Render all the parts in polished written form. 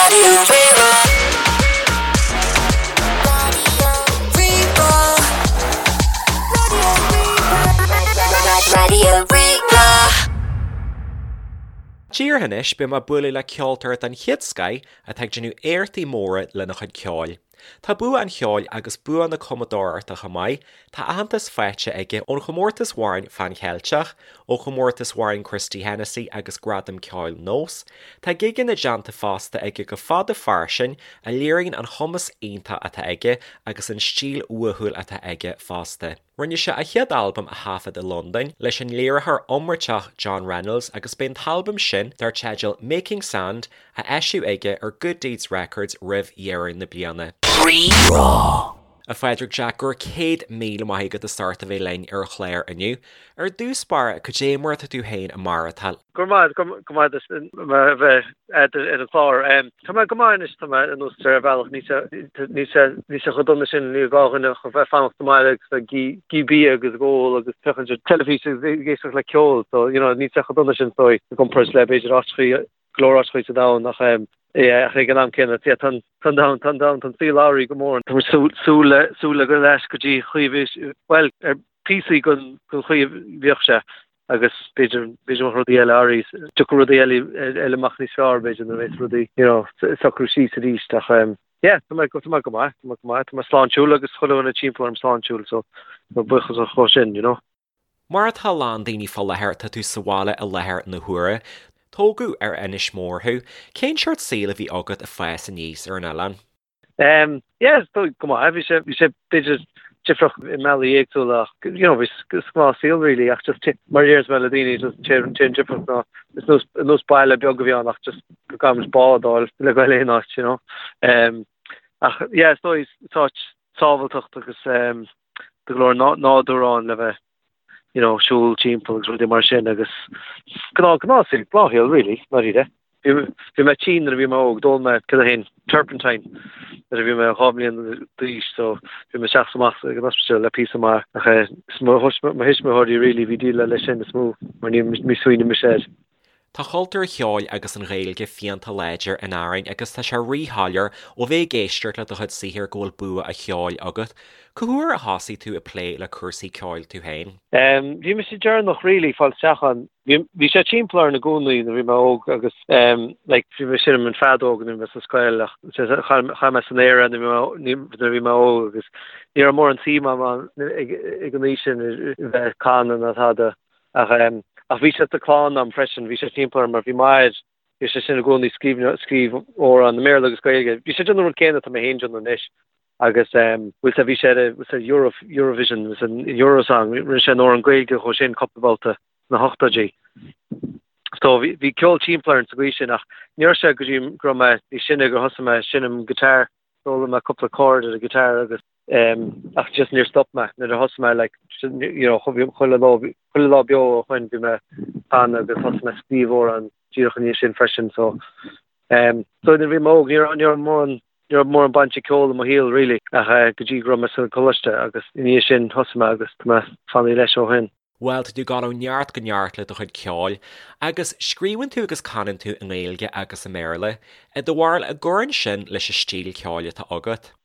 Raidió Rí-Rá. Raidió Rí-Rá. Raidió Rí-Rá. Díreach anois, beidh mé ag bualadh le ceoltóir den chéad scoith atá ag déanamh éachtaí móra lena chuid ceoil. Tá bua an cheoil agus bua na cumadóireachta chomh maith, tá aitheantas faighte aige ón chomórtas amhráin Phan Cheilteach, ó chomórtas amhráin Christy Hennessy agus Gradam Ceoil Nós. Tá gigeanna déanta fosta aige go fada fairsing a léiríonn an chumas iontach atá aige agus an stíl uathúil atá aige fosta. Rinne sé a chéad albam a thaifead i Londain leis an léiritheoir iomráiteach John Reynolds agus beidh an t-albam sin, dar teideal Making Sand, á eisiú aige ar Good Deeds Records roimh dheireadh na bliana. Rí-Rá. A Phádraig Jack, go raibh 100,000 maith agat as ucht a bheith linn ar an chlár inniu. Ar dtús báire, cad é mar atá tú féin ag maireachtáil? Go raibh maith, go maith duit a bheith ar an chlár. Tá mé go maith anois, tá mé anuas ar bhealach, níl sé, níl sé, níl sé chomh dona sin, níl gá dhuine ach a bheith fanacht sa mbaile agus ag ithe bia agus ag ól agus féachaint ar teilifís agus ag éisteacht le ceol, so you know níl sé chomh dona sin is dóigh i gcomparáid le b'fhéidir áiteachaí, go leor áiteachaí sa domhan ach yeah ach ag an am céanna yeah tá an, tá an domhan, tá an domhan, tá an saol athraithe go mór. Tá muid súil, súil le, súil le goil ar ais go dtí chaoi a bhí, bhuel ar píosaí den, den chaoi a bhíodh sé. agus b'fhéidir, b'fhéidir go mbeadh rudaí eile arís, tiocfaidh rudaí eile, eile amach níos fearr b'fhéidir nuair a bheas rudaí, you know, socrú síos arís ach ehm yeah, tá mé, tá mé go maith, tá mé go maith, tá mé sláintiúil agus chuile dhuine timpeall orm sláintiúil so tá buíochas dhó sin, you know. Mar atá a lán daoine fá láthair, tá tú sa bhaile i láthair na huaire. Tógadh ar Inis Mór thú. Cén seort saoil a bhí agat ag fás aníos ar an oileán? Um, yeah, go maith, bhí sé, bhí sé b'fhéidir difriúil i mbealaí éagsúla ach, you know, bhí gnáth saol really ach just mar a deireanns mé le daoine just an t-aon difríocht ná is nós, nós baile beag a bhí ann ach just go gcaithfidh muid bád a fháil le goil aon áit, you know. Um, ach yeah, is dóigh is áit sábháilteacht agus um, tá go leor nádúr ann le bheith you know, siúl timpeall agus rudaí mar sin agus gnáth, gnáth saol, gnáthshaol really, ndáiríre. Bhí, bhí mé tinn nuair a bhí mé óg, d'ól mé cad é féin, turpentine nuair a bhí mé 2 mbliana d'aois so bhí mé isteach is amach ag an ospidéal le píosa maith ach eh, is mo, mo thuismitheoirí really a bhí ag déileáil leis sin is mó mar ní, ní smaoinigh mise air. Tá cultúr an cheoil agus an Ghaeilge fiánta láidir in Árainn agus tá sé ríshoiléir ó bheith ag éisteacht le do chuid saothair go bhfuil bua an cheoil agat. Cá huair a thosaigh tú ag plé le cúrsaí ceoil tú féin? Bhí mise deireanach really fáil isteach ann. Bhí sé timpeall orm i gcónaí nuair a bhí mé óg agus like bhí mé ag seinm an feadóg nuair a bhí mé sa scoil ach chan mé san aer nuair a bhí mé óg agus ní raibh mórán suim agam ag an aois sin a bheith ag canadh ná tada. Ach ach bhí sé sa clann a'm freisin, bhí sé timpeall orm mar bhí m'athair, bhí sé sin i gcónaí scríobh scríobh amhrán i mBéarla agus Gaeilge. Bhí sé ag déanamh an rud céanna atá mé féin ag déanamh anois agus bhfuil sé bhí sé ar bhfuil sé Euro Eurovision bhfuil sé Eurosong rinne sé an amhrán Gaeilge dhó sin cúpla babhta sna hochtóidí. So bhí bhí ceol timpeall orm sa gcaoi sin ach ní raibh sé go dtí go raibh mé níos sine gur thosaigh mé ag seinm guitar, d'fhoghlaim mé cúpla chord ar an guitar agus Ach just níor stop mé nuair a thosaigh mé like you know chuile lá chuile lá beo ó shoin bhí mé ag canadh agus thosaigh mé ag scríobh amhrán díreach i ndiaidh sin freisin so um, so nuair a bhí mé óg ní raibh ní raibh mórán ní raibh mórán baint ag ceol i mo shaol really ach eh, go dtí go raibh mé sa choláiste agus i ndiaidh sin thosaigh mé agus tá mé fanaithe leis ó shin. Bhuel, tá tú ag dul ó neart go neart le do chuid ceoil, agus scríobhann tú agus canann tú i nGaeilge agus i mBéarla. I do bharúil, an gcuireann sin leis an stíl ceoil atá agat?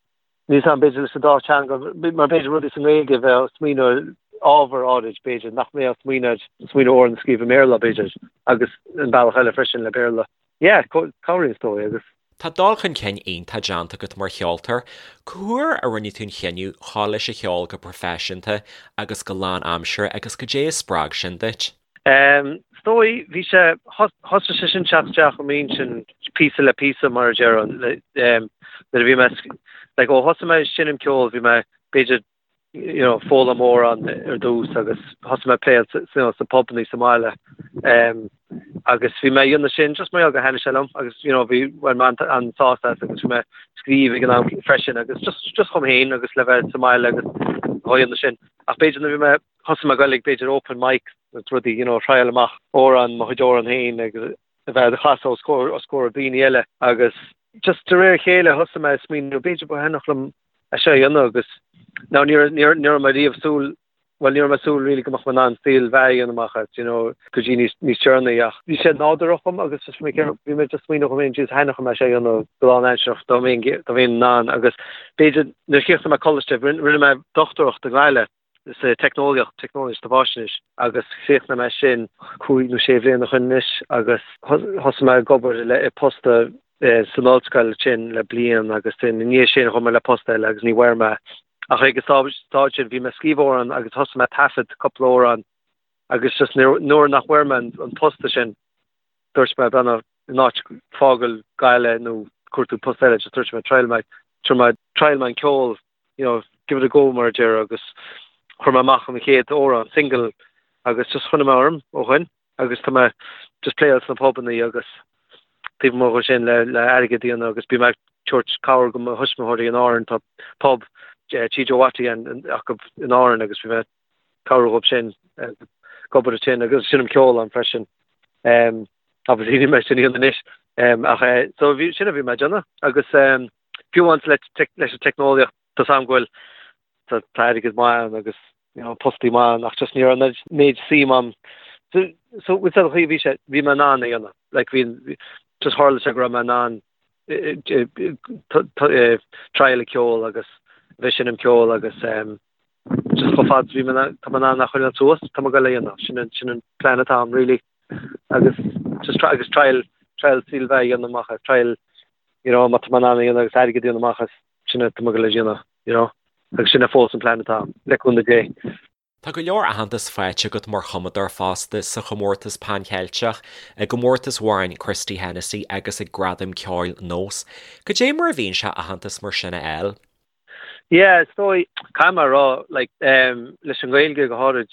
Níl 's a'm, b'fhéidir leis an dá teanga, mar b'fhéidir rudaí sa nGaeilge bheith ag smaoineamh ar ábhar áirid, b'fhéidir, nach mbeadh ag smaoineamh smaoineamh amhrán a scríobh i mBéarla, b'fhéidir, agus an bealach eile freisin le Béarla. Yeah, cabhraíonn is dóigh, agus. Tá dul chun cinn iontach déanta agat mar cheoltóir. Cá huair a rinne tú an chinneadh dhul leis an cheol go proifisiúnta agus go lán-aimseartha agus cad é a spreag sin duit? Is dóigh, bhí sé, thosaigh sé sin teacht isteach i m'intinn píosa le píosa mar a déarfá, nuair a bhí mé, like ó thosaigh mé ag seinm ceoil bhí mé b'fhéidir you know, foghlaim amhrán ar dtús agus thosaigh mé ag pléáil you know, sa pubannaí sa mbaile. Um, agus bhí mé ag déanamh sin just mar gheall gur thaitnigh sé liom agus you know, bhí bhain mé an sásamh as agus bhí mé scríobh ag an am freisin agus just, just dhom féin agus le bheith sa mbaile agus á dhéanamh sin. Ach b'fhéidir nuair bhí mé thosaigh mé ag goil ag b'fhéidir open mic agus rudaí, you know, triáil amach amhrán, mo chuid amhrán féin agus a bheith á chasadh os comhair, os comhair daoine eile agus just de réir a chéile thosaigh mé ag smaoineamh b'fhéidir ba thaitneodh liom é seo a dhéanamh agus now ní raibh, ní raibh mé riamh súil, bhuel ní raibh mé ag súil really go mbeadh mé in ann saol bheatha a dhéanamh amach as, you know, go dtí níos, níos deireanaí ach bhí sé nádúrtha dhom agus just bhí mé, bhí mé just smaoineamh dhom féin, Jesus thaitneodh mé sé a dhéanamh go lánaimsearach dá mbeinn, dá mbeinn in ann agus b'fhéidir nuair a chríochnaigh mé coláiste, rinne mé dochtúireacht i nGaillimh sa teicneolaíocht, teicneolaíocht sa bhfaisnéis agus chríochnaigh mé sin cúig nó sé bhliain ó shin anois agus thosaigh mé ag obair le, i post san ollscoil sin le bliain agus ina ndiaidh sin chuaigh mé le post eile agus ní bhfuair mé Ach ag an stáid sin bhí mé ag scríobh amhrán agus thosaigh mé ag taifead cúpla amhrán agus just nuair nach bhfuair mé an post sin dúirt mé b'fhéidir in áit fágáil Gaillimh nó cuartú post eile just dúirt mé triail mé triail mé triail mé an ceol you know give it a go mar a déarfá agus chuir mé amach an chéad amhrán single agus just choinnigh mé orm ó shin. agus tá mé just playáil sna pubannaí agus taobh amuigh dhe sin le le airgead a dhéanamh agus bím ag tabhairt cabhair go mo thuismitheoirí in Árainn tá pub Tí Joe Watty acu in Árainn agus bím ag cabhrú dhóibh sin ag obair ansin agus seinnim ceol ann freisin. Um, obviously níl mé sin a dhéanamh anois um, ach eh, so bhí sin a bhí mé ag déanamh agus um, fiú amháin le leis an teicneolaíocht tá a fhios agam go bhfuil tá airgead maith ann agus you know, postaí maith ann ach just ní raibh an méid suim a'm. So, so with an chaoi bhí sé, bhí mé in ann a dhéanamh. Like bhí, just tharla sé go raibh mé in ann triail a ceol agus bheith seinm ceol agus um, just chomh fada bhí mé tá mé in ann a choinneáil suas, tá mé ag goil a dhéanamh. Sin an, sin an plan atá a'm, really. Agus just try, agus triail, triail saol bheatha a dhéanamh amach as, triail, you know, má tá mé in ann a dhéanamh agus airgead a dhéanamh amach as, sin é tá mé ag goil a dhéanamh, you know, agus sin é fós an plean atá agam, le cúnamh Dé. Tá go leor aitheantas faighte agat mar chumadóir fosta sa chomórtas Pan Cheilteach, i gcomórtas amhráin Christy Hennessy agus ag Gradaim Ceoil Nós. Cad é mar a bhíonn sé aitheantas mar sin a fháil? Yeah, is dóigh, caithfidh mé a rá, like, um, leis an nGaeilge go háirid,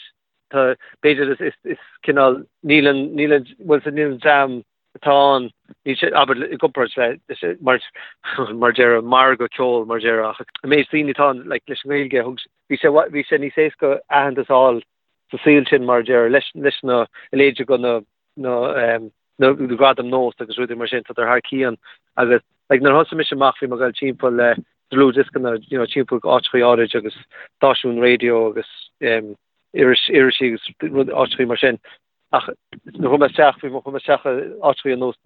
tá, b'fhéidir is, is, is cineál, níl an, níl an, bhuel, níl an dream atá ann, níl sé, abair, i gcomparáid le, mar, mar déarfá, margadh ceoil, mar déarfá, ach an méid daoine atá ann, like, leis an nGaeilge, thug, bhí sé, bhí sé níos éasca aitheantas a fháil sa saol sin, mar déarfá, leis, leis na, a leithéid de na, na, um, na gradaim Nós agus rudaí mar sin, tá thar cionn agus, like, nuair a thosaigh mise amach, bhí mé ag dul timpeall le dlúthdhioscanna, you know, timpeall áiteachaí áirid agus stáisiún raidió agus, um, iris, irisí agus rud, áiteachaí mar sin. Ach nuair a chuaigh mé isteach, bhí mé, chuaigh mé isteach i áiteachaí ar nós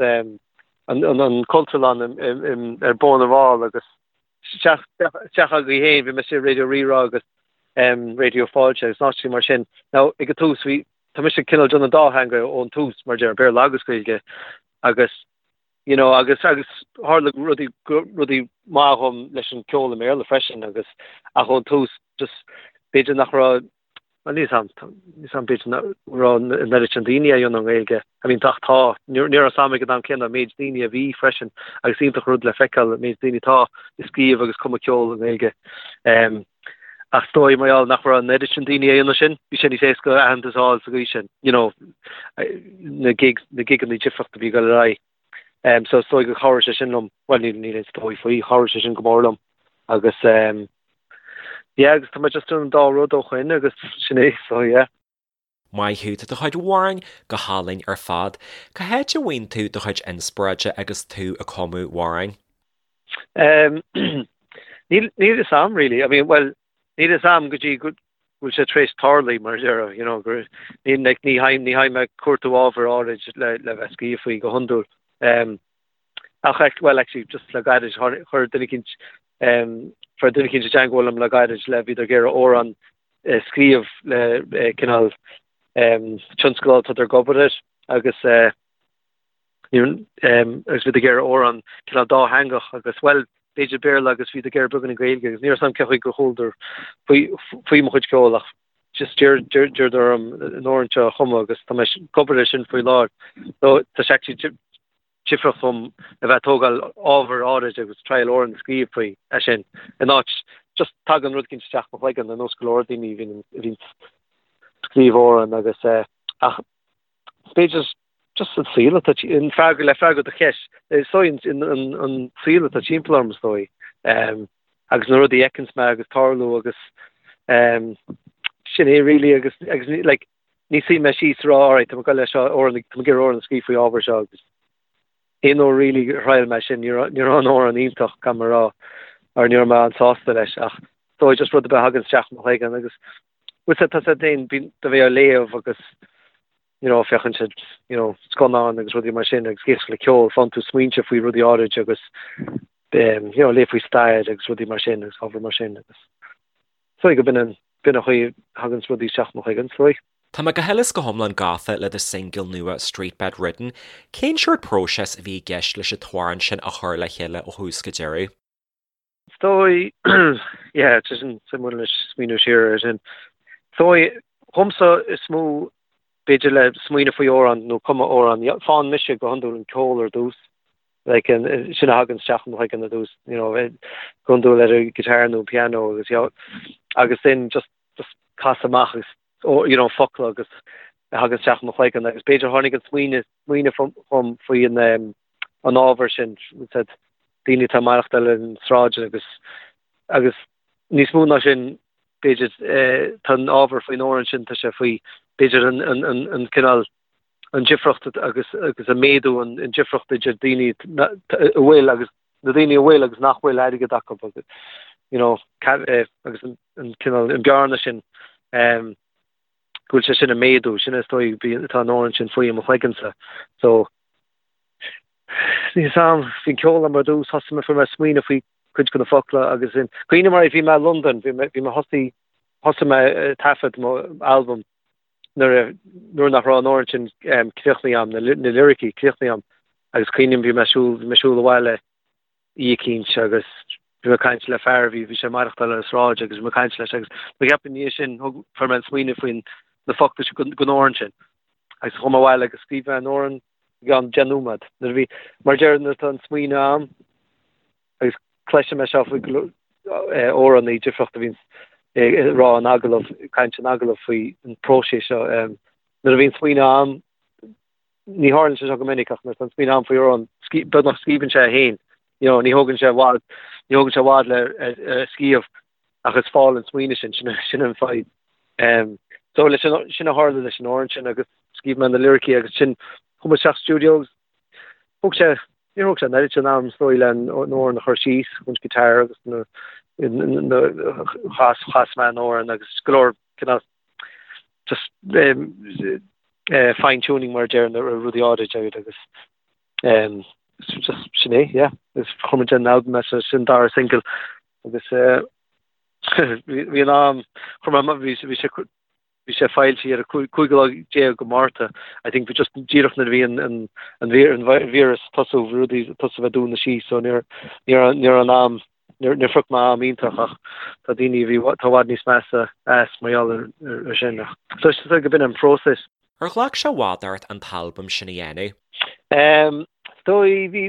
an, an, an Cultúrlann ar Bhóthar na bhFál agus isteach, isteach agaibh féin, bhí mé istigh i Raidió Rí-Rá agus Raidió Fáilte agus áiteachaí mar sin. Now, ag an tús, bhí, tá mise cineál déanamh an dá theanga ón tús, mar déarfá, Béarla agus Gaeilge agus, you know, agus, agus tharla rudaí, rudaí maith dhom leis an ceol i mBéarla freisin agus, ach ón tús, just, b'fhéidir nach raibh, Bhuel, níl 's a'm, níl 's a'm, b'fhéidir nach raibh an oiread sin daoine á dhéanamh i nGaeilge. I mean, ach tá, ní raibh 's a'm ag an am céanna an méid daoine a bhí freisin agus iontach rud le feiceáil an méid daoine atá ag scríobh agus cumadh ceol i nGaeilge. Ach is dóigh mar gheall nach raibh an oiread sin daoine á dhéanamh sin, bhí sé níos éasca aitheantas a fháil sa gcaoi sin, you know, na gigs, na gigeanna difríochta a bhí ag dul ar aghaidh. So is dóigh gur chabhraigh sé sin liom, bhuel níl, níl aon 's dóigh faoi, chabhraigh sé sin go mór liom agus, Yeah agus tá mé just déanamh an dá rud ó shoin agus sin é so yeah. Maith thú, tá do chuid amhráin go hálainn ar fad. Cá háit a bhfaigheann tú do chuid inspioráide agus tú ag cumadh amhráin? Um, níl níl fhios a'm really. I mean, well, níl fhios a'm go dtí go bhfuil sé tar éis tarlú mar a déarfá, you know, gur ní like, ní théim ní théim ag cuartú ábhar áirid le le bheith scríobh faoi go hiondúil. Um, Ach, well, actually, just le gairid, chuir duine eicínt, fuair duine eicínt i dteangmháil liom le gairid le bhíodar ag iarraidh amhrán a scríobh le cineál tionscadal atá ag obair air agus agus bhíodar ag iarraidh amhrán cineál dátheangach agus, well, b'fhéidir Béarla agus bhíodar ag iarraidh beagáinín Gaeilge agus ní raibh 's a'm cén chaoi gur chualadar faoi faoi mo chuid ceoil ach just d'iarradar orm an amhrán seo a chumadh agus tá mé ag obair air sin faoi láthair. So tá sé actually difriúil dom a bheith ag tógáil ábhar áirid agus triail amhrán a scríobh faoi é sin in áit just tagann rud eicínt isteach mo chloigeann ar nós go leor daoine a bhíonn a bhíonn scríobh amhrán agus eh, ach b'fhéidir just an saol atá an freagra le freagra do cheist is dóigh an, an, an saol atá timpeall orm is dóigh um, agus na rudaí a fheiceanns mé agus tarlú agus um, sin é really agus agus like Ní suím mé síos a rá alright tá mé ag goil leis seo amhrán tá mé ag iarraidh amhrán a scríobh faoi ábhar seo agus aon uair really a thriail mé sin ní raibh ní raibh an amhrán iontach gan mé a rá or ní raibh mé an-sásta leis ach dóigh just rud ar bith a thagann isteach i mo chloigeann agus Bhuel tá sé féin bíonn do bheith á léamh agus you know féachann siad you know scannáin agus rudaí mar sin agus éisteacht le ceol, faigheann tú smaointe faoi rudaí áirid agus um, you know léamh faoi stair agus rudaí mar sin agus ábhar mar sin agus is dóigh go b'in an b'in an chaoi a thagann rudaí isteach mo chloigeann, is dóigh. Tá mé go huile is go hiomlán gafa le do singil nua Street Bed Ridden. Cén seort próiseas a bhí i gceist leis an t-amhrán sin a chur le chéile ó thús go deireadh? Is dóigh, yeah, tá sin suimiúil anois smaoineamh siar ar sin. Is dóigh, dhomsa is mó b'fhéidir le smaoineamh faoi amhrán nó cumadh amhrán, faigheann mise go hiondúil an ceol ar dtús, like, sin a thagann isteach i mo chloigeann ar dtús, you know, go hiondúil ar an guitar nó piano agus, you know, agus then just, just casadh amach agus, you know, focla agus a thagann isteach i mo chloigeann agus b'fhéidir tháinig an smaoineamh, smaoineamh chugam faoi an, an ábhar sin, said, daoine atá ag maireachtáil ar an sráid agus, agus níos mó ná sin, b'fhéidir, tá an ábhar faoin amhrán sin, tá sé faoi, b'fhéidir an, an, an, an cineál, an difriocht agus, agus an méadú, an, an difriocht idir daoine a bhfuil agus na daoine a bhfuil agus nach bhfuil airgead acu agus, you know, agus an, an cineál, an bearna sin, go bhfuil sé sin ag méadú, sin is dóigh atá an amhrán sin faoi i mo chloigeannsa. So, níl 'fhios a'm, bhí an ceol a'm ar dtús, thosaigh mé, fuair mé smaoineamh faoi cuid de na focla agus sin, cuimhním mar bhí mé i Londain, bhí mé, bhí mé thosaigh, thosaigh mé ag taifead mo albam nuair a, nuair nach raibh an amhrán sin críochnaithe a'm, na, na liricí críochnaithe a'm agus cuimhním bhí mé ag siúl, bhí mé ag siúl abhaile oíche eicínt agus bhí mé ag caint le fear a bhí, bhí sé ag maireachtáil ar an sráid agus bhí mé ag caint leis agus mo cheapadh ina dhiaidh sin thug, fuair mé an smaoineamh faoin na focla sin don amhrán sin agus chuaigh mé abhaile agus scríobh mé an amhrán i gceann 10 nóiméad. Nuair a bhí, mar a deir nuair atá an smaoineamh a'm agus cloisim é seo faoi go leor amhránaí difriúla a bhíonn ag rá in agallamh, ag caint in agallamh faoi an próiseas seo. Nuair a bhíonn smaoineamh a'm ní tharlaíonn sé seo go minic ach nuair atá an smaoineamh a'm faoi amhrán, beagnach scríobhann sé é féin. You know, ní thógann sé i bhfad, ní thógann sé i bhfad le scríobh ach is fáil an smaoineamh sin, sin, sin an fadhb. Um, so leis an, sin a tharla leis an amhrán sin agus scríobh mé na liricí agus sin chuaigh mé isteach studio agus thóg sé, níor thóg sé an oiread sin am is dóigh le an amhrán a chur síos, an guitar agus na, na, chas, chas mé an amhrán agus go leor cineál just fine tuning mar a deir na rudaí áirid agus um, just sin é, yeah. Is chuir muid an album as sin dara single agus bhí an am chuir mé bhí bhí sé bhí sé foilsithe ar an 15 lá de Márta. I think bhí just díreach nuair a bhí an an an an víreas tosú rudaí tosú bheith dúnadh síos so níor níor níor an am Níor phioc mé am iontach ach tá daoine a bhí tá i bhfad níos measa as mar gheall ar sin. So is dóigh go b'in an próiseas. Ar ghlac sé i bhfad ort an t-albam sin a dhéanamh? Is dóigh, bhí,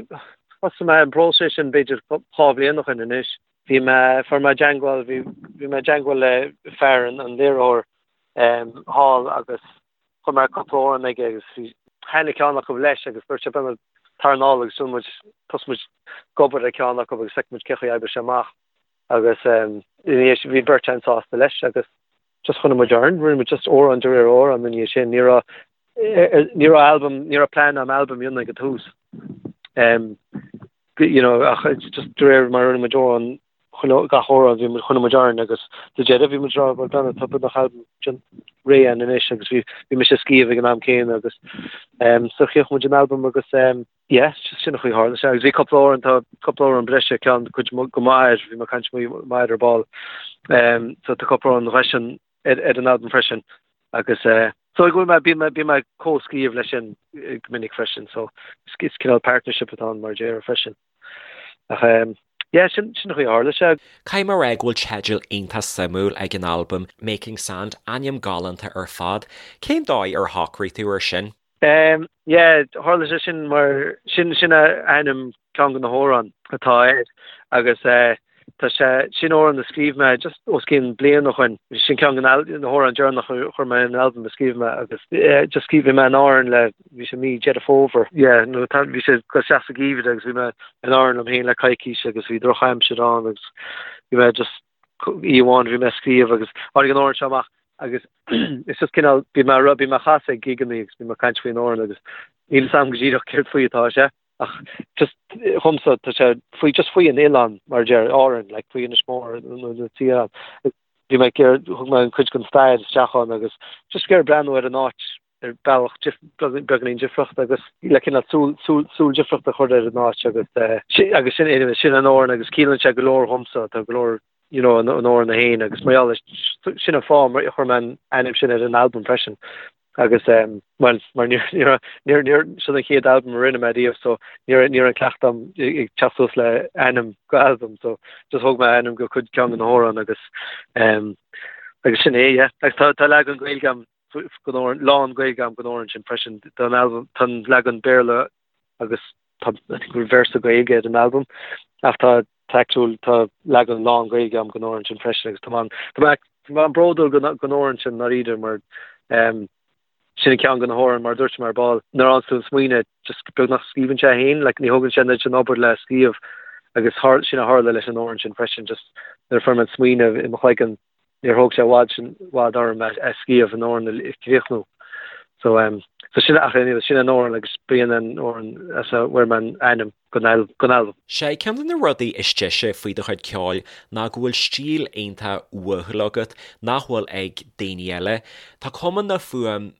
thosaigh mé an próiseas sin b'fhéidir 2 bhliain ó shin anois. Bhí mé, fuair mé i dteangmháil, bhí, bhí mé i dteangmháil le fear an, an léiritheoir thall agus Chuir mé cúpla amhrán aige agus bhí thaitnigh ceann acu leis agus dúirt sé beidh tar anall agus rinne muid thosaigh muid ag obair ar ceann acu agus feicfidh muid cén chaoi a oibreoidh sé amach agus ina dhiaidh sin bhí beirt againn sásta leis agus just choinnigh muid orainn, rinne muid just amhrán de réir amhrán ina dhiaidh sin. Ní raibh ní raibh albam ní raibh plean a'm albam a dhéanamh ag an tús. Um, you know, ach just de réir mar rinne muid amhrán chuile gach amhrán bhí muid choinnigh muid orainn agus sa deireadh bhí muid ag rá bhuel Donna tá beagnach albam sin réidh againn anois agus bhí bhí mise ag scríobh ag an am céanna agus um, so chríochnaigh muid an albam agus um, yeah, sin an chaoi a tharla sé agus bhí cúpla amhrán tá cúpla amhrán breise ceann cuid go maith bhí mé ag caint maith ar ball um, so tá cúpla amhrán breise ar, ar an albam freisin agus uh, so go bhfuil mé bím bím ag comhscríobh leis sin go minic freisin so is cineál partnership atá ann mar a déarfá freisin. Ach um, yeah, sin sin an chaoi a tharla sé. Caithfidh mé a rá go bhfuil teideal iontach suimiúil ag an albam, Making Sand, ainm galánta ar fad. Cén dóigh ar shocraigh tú air sin? Um, yeah, tharla sé sin mar sin sin a ainm ceann de na hamhráin atá air agus eh, Tá sé sin amhrán a scríobh mé just os cionn bliain ó shoin. Sin ceann de na hamhráin deireanach a chuir mé in albam a scríobh mé agus just scríobh mé in Árainn le bhí sé mí Deireadh Fómhair. Yeah, nó tá bhí sé go isteach sa gheimhreadh agus bhí mé in Árainn liom féin le coicís agus bhí drochaimsir ann agus bhí mé just oíche amháin bhí mé ag scríobh agus tháinig an amhrán seo amach agus it's just cineál bhí mé bhí mé ag casadh ag gigeanna agus bhí mé ag caint faoin amhrán agus níl fhios a'm go díreach céard faoi atá sé. Ach just dhomsa tá sé faoi just faoi an oileán mar a deir Árainn like faoi Inis Mór nó na tír. Bhí mé ag iarraidh, thug mé an cuid den stair isteach ann agus just ag iarraidh breathnú ar an áit ar bealach beagáinín difriúil agus le cineál súil, súil, súil difriúil a chur ar an áit agus agus sin, anyway, sin an amhrán agus ciallaíonn sé go leor dhomsa, tá go leor, you know, an amhrán é féin agus mar gheall air, sin an fáth mar a chuir mé an ainm sin ar an albam freisin agus bhuel, mar níor, níor, níor, níor, sin an chéad albam a rinne mé riamh so ní raibh, ní raibh an cleachtadh agam ag teacht suas le ainm go albam so just thóg mé ainm go cuid ceann de na hamhráin agus agus sin é, yeah. Agus tá, tá leagan Gaeilge agam den amhrán, lán Gaeilge agam den amhrán sin freisin, tá an albam, tá an leagan Béarla agus tá, I think go bhfuil véarsa Gaeilge ar an albam ach tá, tá actual, tá leagan lán Gaeilge agam den amhrán sin freisin agus tá mé, tá mé, tá mé an-bhródúil den, den amhrán sin ndáiríre mar ehm sin an ceann de na hamhráin mar a dúirt mé ar ball, nuair a fhaigheann tú an smaoineamh just beagnach scríobhann sé féin, like ní thógann sé an oiread sin obair le scríobh agus thar, sin a tharla leis an amhrán sin freisin just nuair a fuair mé an smaoineamh i mo chloigeann níor thóg sé i bhfad sin i bhfad orm é scríobh an amhrán a chríochnú. So um so sin ach anyway sin an amhrán agus b'in an amhrán as a bhfuair mé an ainm don don albam. Sé ceann de na rudaí is deise faoi do chuid ceoil ná go bhfuil stíl iontach uathúil agat nach bhfuil ag daoine eile. Tá cuma na fuaim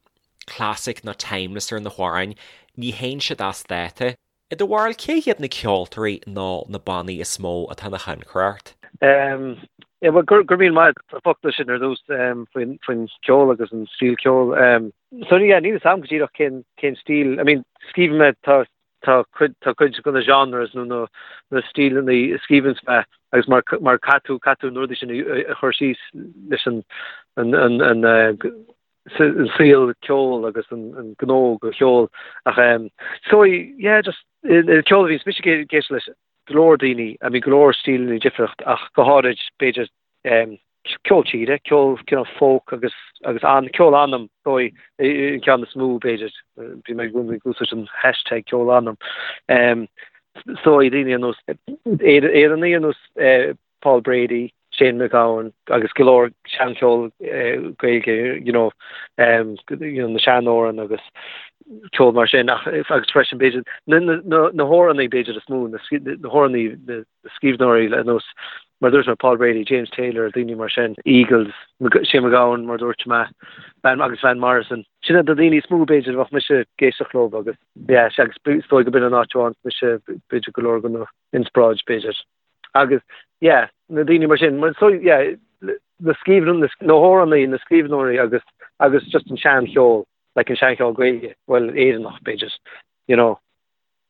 classic nó timeless ar na hamhráin, ní théann siad as dáta. I do bharúil, cé hiad na ceoltóirí nó na bannaí is mó atá ina thionchar ort? Em, yeah, well, go raibh míle maith agat as na focla sin ar dtús em, faoin, faoin cheol agus an stíl ceoil. Em, so, yeah, níl a fhios agam go díreach cén, cén stíl, I mean, scríobhann mé, tá, tá cuid, tá cuid de na genres nó na, na stíleanna a scríobhanns mé agus mar, mar caithfidh tú, caithfidh tú na rudaí sin a, a chur síos leis an, an, an, an, eh, an saol ceoil agus an gnó go cheol ach so yeah just an ceol a bhíonns mise ag éisteacht leis go leor daoine I mean go leor stíleanna difriúil ach go háirid b'fhéidir ceol tíre, ceol cineál folk agus agus an ceol anam dóigh an ceann is mó b'fhéidir bhí mé ag úsáid an hashtag ceol anam so daoine ar nós Éireannaigh ar nós Paul Brady, Shane MacGowan agus go leor seancheol Gaeilge, you know, you know, na seanamhráin agus ceol mar sin ach agus freisin b'fhéidir na, na, na, na hamhránaí b'fhéidir is mó, na, na hamhránaí, na scríbhneoirí ar nós mar dúirt mé Paul Brady, James Taylor, daoine mar sin, Eagles, Shane MacGowan mar dúirt mé, Van, agus Van Morrison. Sin iad na daoine is mó b'fhéidir a bheadh mise ag éisteacht leo agus yeah, agus is dóigh go b'in an áit a bhfaigheann mise b'fhéidir go leor den inspioráid b'fhéidir. Agus, yeah, na daoine mar sin, so, yeah, na scríbhneoirí, na hamhránaí, na scríbhneoirí agus, agus just an seancheol, like an seancheol Gaeilge, bhuel, Éireannach, b'fhéidir, you know,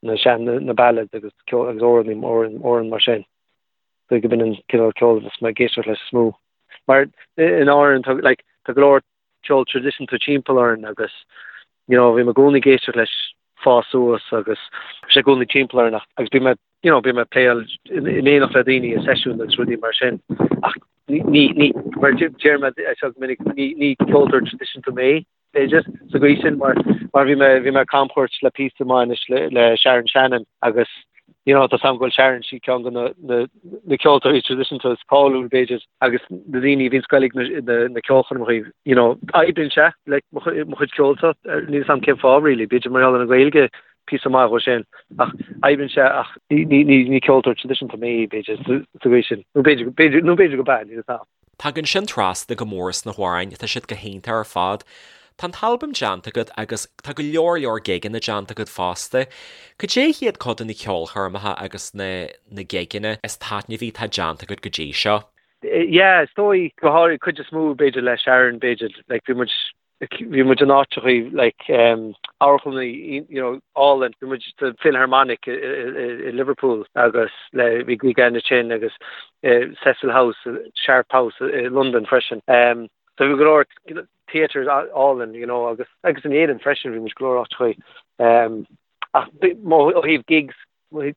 na sean, na ballads agus ceol, agus amhráin, amhráin, amhráin mar sin. So go b'in an cineál ceoil a bheas mé ag éisteacht leis is mó. Mar in Árainn, tá, like, tá go leor ceol traidisiúnta timpeall orainn agus, you know, bhí mé i gcónaí ag éisteacht leis fás suas agus bhí sé i gcónaí timpeall orainn ach, agus bhí mé you know, bím ag pléáil in éineacht le daoine i seisiún agus rudaí mar sin ach ní, ní, mar deir mé é seo go minic, ní, ní ceoltóir traidisiúnta mé, b'fhéidir, sa gcaoi sin mar, mar bhí mé, bhí mé ag camchuairt le píosa maith anois le, le Sharon Shannon agus, you know, tá 's agam go bhfuil Sharon, sí ceann de na, na, na ceoltóirí traidisiúnta is cáiliúil, b'fhéidir, agus na daoine a bhíonn ag goil ag na, na, na ceolchoirmeacha, you know, oibríonn sé le mo chuid, mo chuid ceoil-sa, níl 'fhios agam cén fáth really, b'fhéidir mar gheall ar an Ghaeilge, píosa maith dhó sin, ach oibríonn sé ach ní ceoltóir traidisiúnta mé, b'fhéidir, sa gcaoi sin. Nó b'fhéidir, b'fhéidir, nó b'fhéidir go b'ea, níl 'fhios a'm. Tagann sin trasna go mór sna hamhráin, tá siad go hiontach ar fad. Tá an t-albam déanta agat agus tá go leor leor gigeanna déanta agat fosta. Cad é hiad cuid de na ceolchoirmeacha agus na na gigeanna is taitneamhaí atá déanta agat go dtí seo? Yeah, is dóigh, go háirid, cuid is mó b'fhéidir le Sharon, b'fhéidir, like bhí muid bhí muid in áiteachaí like amharclanna you know álainn, bhí muid sa Philharmonic i Liverpool agus le bhí gig againn ansin agus Cecil House, Sharp House i Londain freisin. So bhí go leor theatres álainn you know agus agus in Éirinn freisin bhí muid go leor áiteachaí. Ach ó thaobh gigs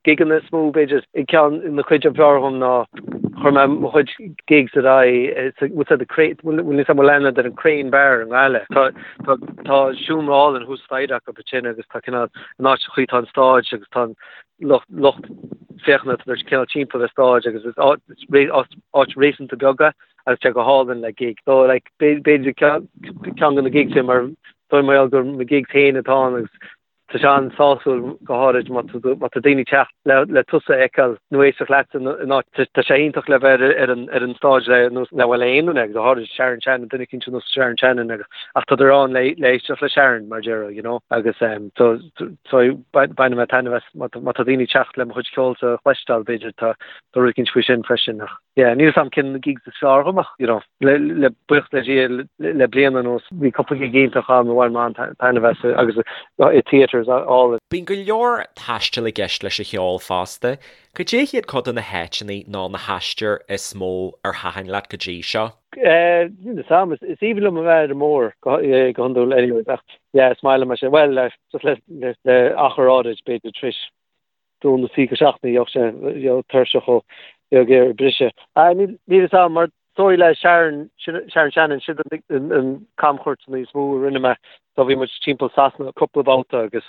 gigeanna is mó, b'fhéidir. Ceann na cuid ab fhearr dhom ná chuir mé mo chuid gigs ar aghaidh bhfuil said the Crane, bhfuil níos mó leanadh ar an Crane Bar i nGaillimh. Tá tá tá seomra álainn thuas staighre acu ansin agus tá cineál an áit sa chaoi tá an stáid agus tá an lucht lucht féachana tá cineál timpeall ar stáid agus is áit áit réasúnta beag é agus tá go hálainn le gig. So like b'fhéidir ceann de na gigs sin mar dóigh mar gheall gur mo gigs féin atá ann agus. Tá sé an-sásúil go háirid má tá daoine ag teacht le tusa a fheiceáil nó éisteacht leat in áit. Tá sé iontach le bheith ar an stáid le nós le bhuel aon duine agus go háirid Sharon Shannon, duine eicínt ar nós Sharon Shannon agus ach tádar ann le éisteacht le Sharon mar déarfá, you know agus so so baineann mé taitneamh as má tá daoine ag teacht le mo chuid ceoil a chloisteáil b'fhéidir tá rud eicínt faoi sin freisin ach yeah níl 'fhios a'm cén gigs is fearr dhom ach you know. Le buíochas le Dia le bliain anuas bhí cúpla gig iontach agam a bhain mé an-taitneamh as agus i theatres álainn. Bíonn go leor taistil i gceist leis an cheol fosta. Cad é hiad cuid de na háiteanna nó na haistir is mó ar thaitin leat go dtí seo? Níl 'fhios a'm, is aoibhinn liom a bheith ar an mbóthar go hiondúil anyways ach yeah is maith liom é sin. Bhuel just le achar áirid b'fhéidir tar éis dó nó trí go seachtaine bheadh sé bheadh tuirseach ó bheadh ag briseadh. Níl 'fhios a'm mar dóigh le Sharon Sharon Shannon sin an camchuairt is mó a rinne mé so bhí muid timpeall Sasana cúpla babhta agus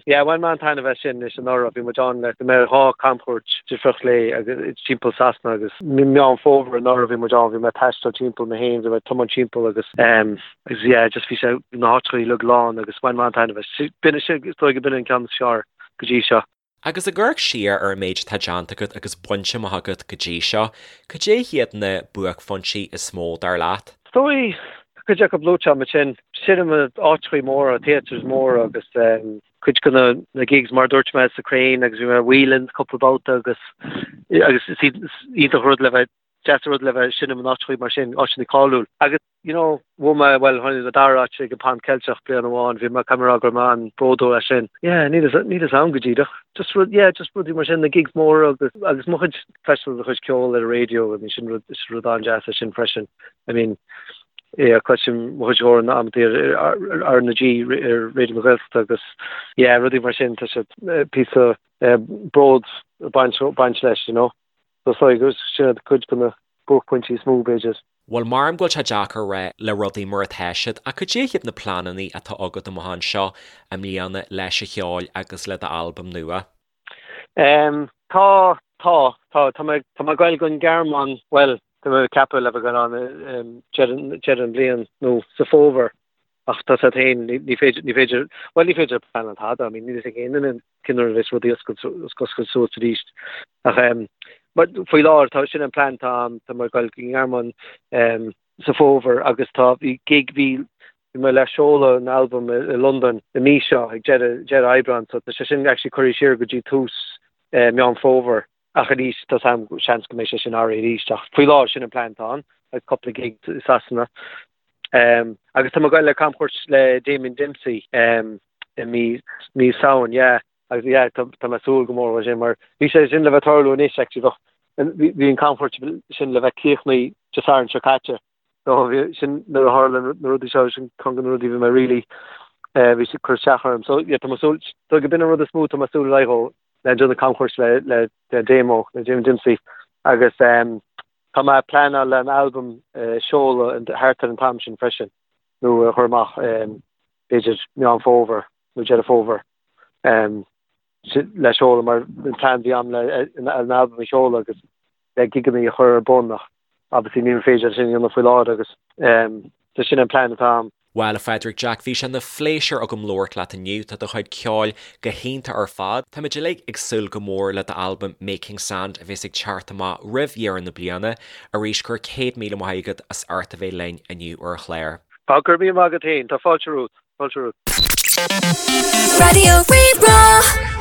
yeah bhain mé an-taitneamh as sin anois anuraidh bhí muid ann le go mbeadh 2 camchuairt difriúil léi agus timpeall Sasana agus Meán Fómhair anuraidh bhí muid ann bhí mé ag taisteal timpeall mé féin bhí mé ag tiomáint timpeall agus agus yeah just bhí sé na háiteacha uilig lán agus bhain mé an-taitneamh as. B'in is dóigh go b'in an ceann is fearr go dtí seo. Agus ag amharc siar ar an méid atá déanta agat agus bainte amach agat go dtí seo, cad é hiad na buaicphointí is mó, dar leat? Is dóigh, tá cuid acu luaite agam ansin, seinm in áiteachaí móra, theatres móra agus cuid de na gigs mar a dúirt mé sa Crane agus bhí mé i Whelan's cúpla babhta agus agus is iontach rud le bheith, deas an rud le bheith ag seinm in áiteachaí mar sin, áiteanna cáiliúil. Agus. you know, bhuaigh mé, bhuel, tháinig an dara áit ag an Pan Ceilteach bliain amháin, bhí mé, caithfidh mé a rá go raibh mé an-bhródúil as sin. Yeah, níl 'fhios, níl 'fhios a'm go díreach. Just rud, yeah, just rudaí mar sin, na gigs móra agus, agus mo chuid, cloisteáil do chuid ceoil ar an raidió, I mean, sin rud, is rud an-deas é sin freisin. I mean, yeah, cloisim mo chuid amhrán amantaí ar, ar, ar R na G, ar Raidió na Gaeltachta agus, yeah, rudaí mar sin, tá siad, píosa, bród ag baint, baint leis, you know. So, so, sin iad cuid de na buaicphointí is mó, b'fhéidir. Bhuel, maram go bhfuil sé deacair a rá le rudaí mar atá siad, ach cad é hiad na pleananna atá agat amach anseo i mbliana leis an cheol agus le d'albam nua? Em, tá, tá, tá, tá mé, tá mé ag goil don Ghearmáin, bhuel, tá mé ag ceapadh le bheith ag goil ann, em, deireadh, deireadh an bhliain nó sa fómhar ach tá 's agat féin, ní, ní féidir, ní féidir, bhuel ní féidir pleanáil tada, I mean, níl a fhios ag aon duine cén uair a bheas rudaí oscailt, oscailt suas arís. Ach em, mar faoi láthair tá, sin an plean atá agam, tá mé ag goil go Gearmáin em, sa fómhar agus tá, bhí gig, bhí, bhí mé le seoladh an albam i, i Londain i mí seo ag deireadh, deireadh Aibreán so tá sé sin actually curtha siar go dtí tús eh, Meán Fómhair. Ach arís, tá 's a'm, seans go mbeidh sé sin athraithe arís ach faoi láthair sin an plean atá ann agus cúpla gig i Sasana. Um, agus tá mé ag goil le camchuairt le Damien Dempsey um, i mí, mí Samhain, yeah. Agus yeah, tá, tá mé ag súil go mór leis sin mar bhí sé sin le bheith tarlú anois actually bheadh bhí, bhí an camchuairt sin le bheith críochnaithe Dé Sathairn seo caite. So bhí sin nuair a tharla na rudaí seo sin ceann de na rudaí bhí mé really eh, bhí sé cur isteach orm. So yeah, tá mé ag súil so go b'in an rud is mó tá mé ag súil ar aghaidh dhó le déanamh camchuairt le le le Damo le Damien Dempsey agus um, Tá mé ag pleanáil le an albam a sheoladh thart ar an t-am sin freisin, nó a chur amach b'fhéidir Meán Fómhair nó Deireadh Fómhair le seoladh mar an plean a bhí agam le an albam a sheoladh agus le gigeanna a chur ar bun ach obviously ní féidir sin a dhéanamh faoi láthair agus so sin an plean atá agam. Bhuel, a Phádraig Jack, bhí sé ina phléisiúr agam labhairt leat inniu. Tá do chuid ceoil go hiontach ar fad. Táimid uilig ag súil go mór le d'albam Making Sand a bheas ag teacht amach roimh dheireadh na bliana. Arís, go raibh 100,000 maith agat as ucht a bheith linn inniu ar an chlár. Tá, go raibh míle maith agat féin. Tá fáilte romhat. Fáilte romhat. Raidió Rí-Rá.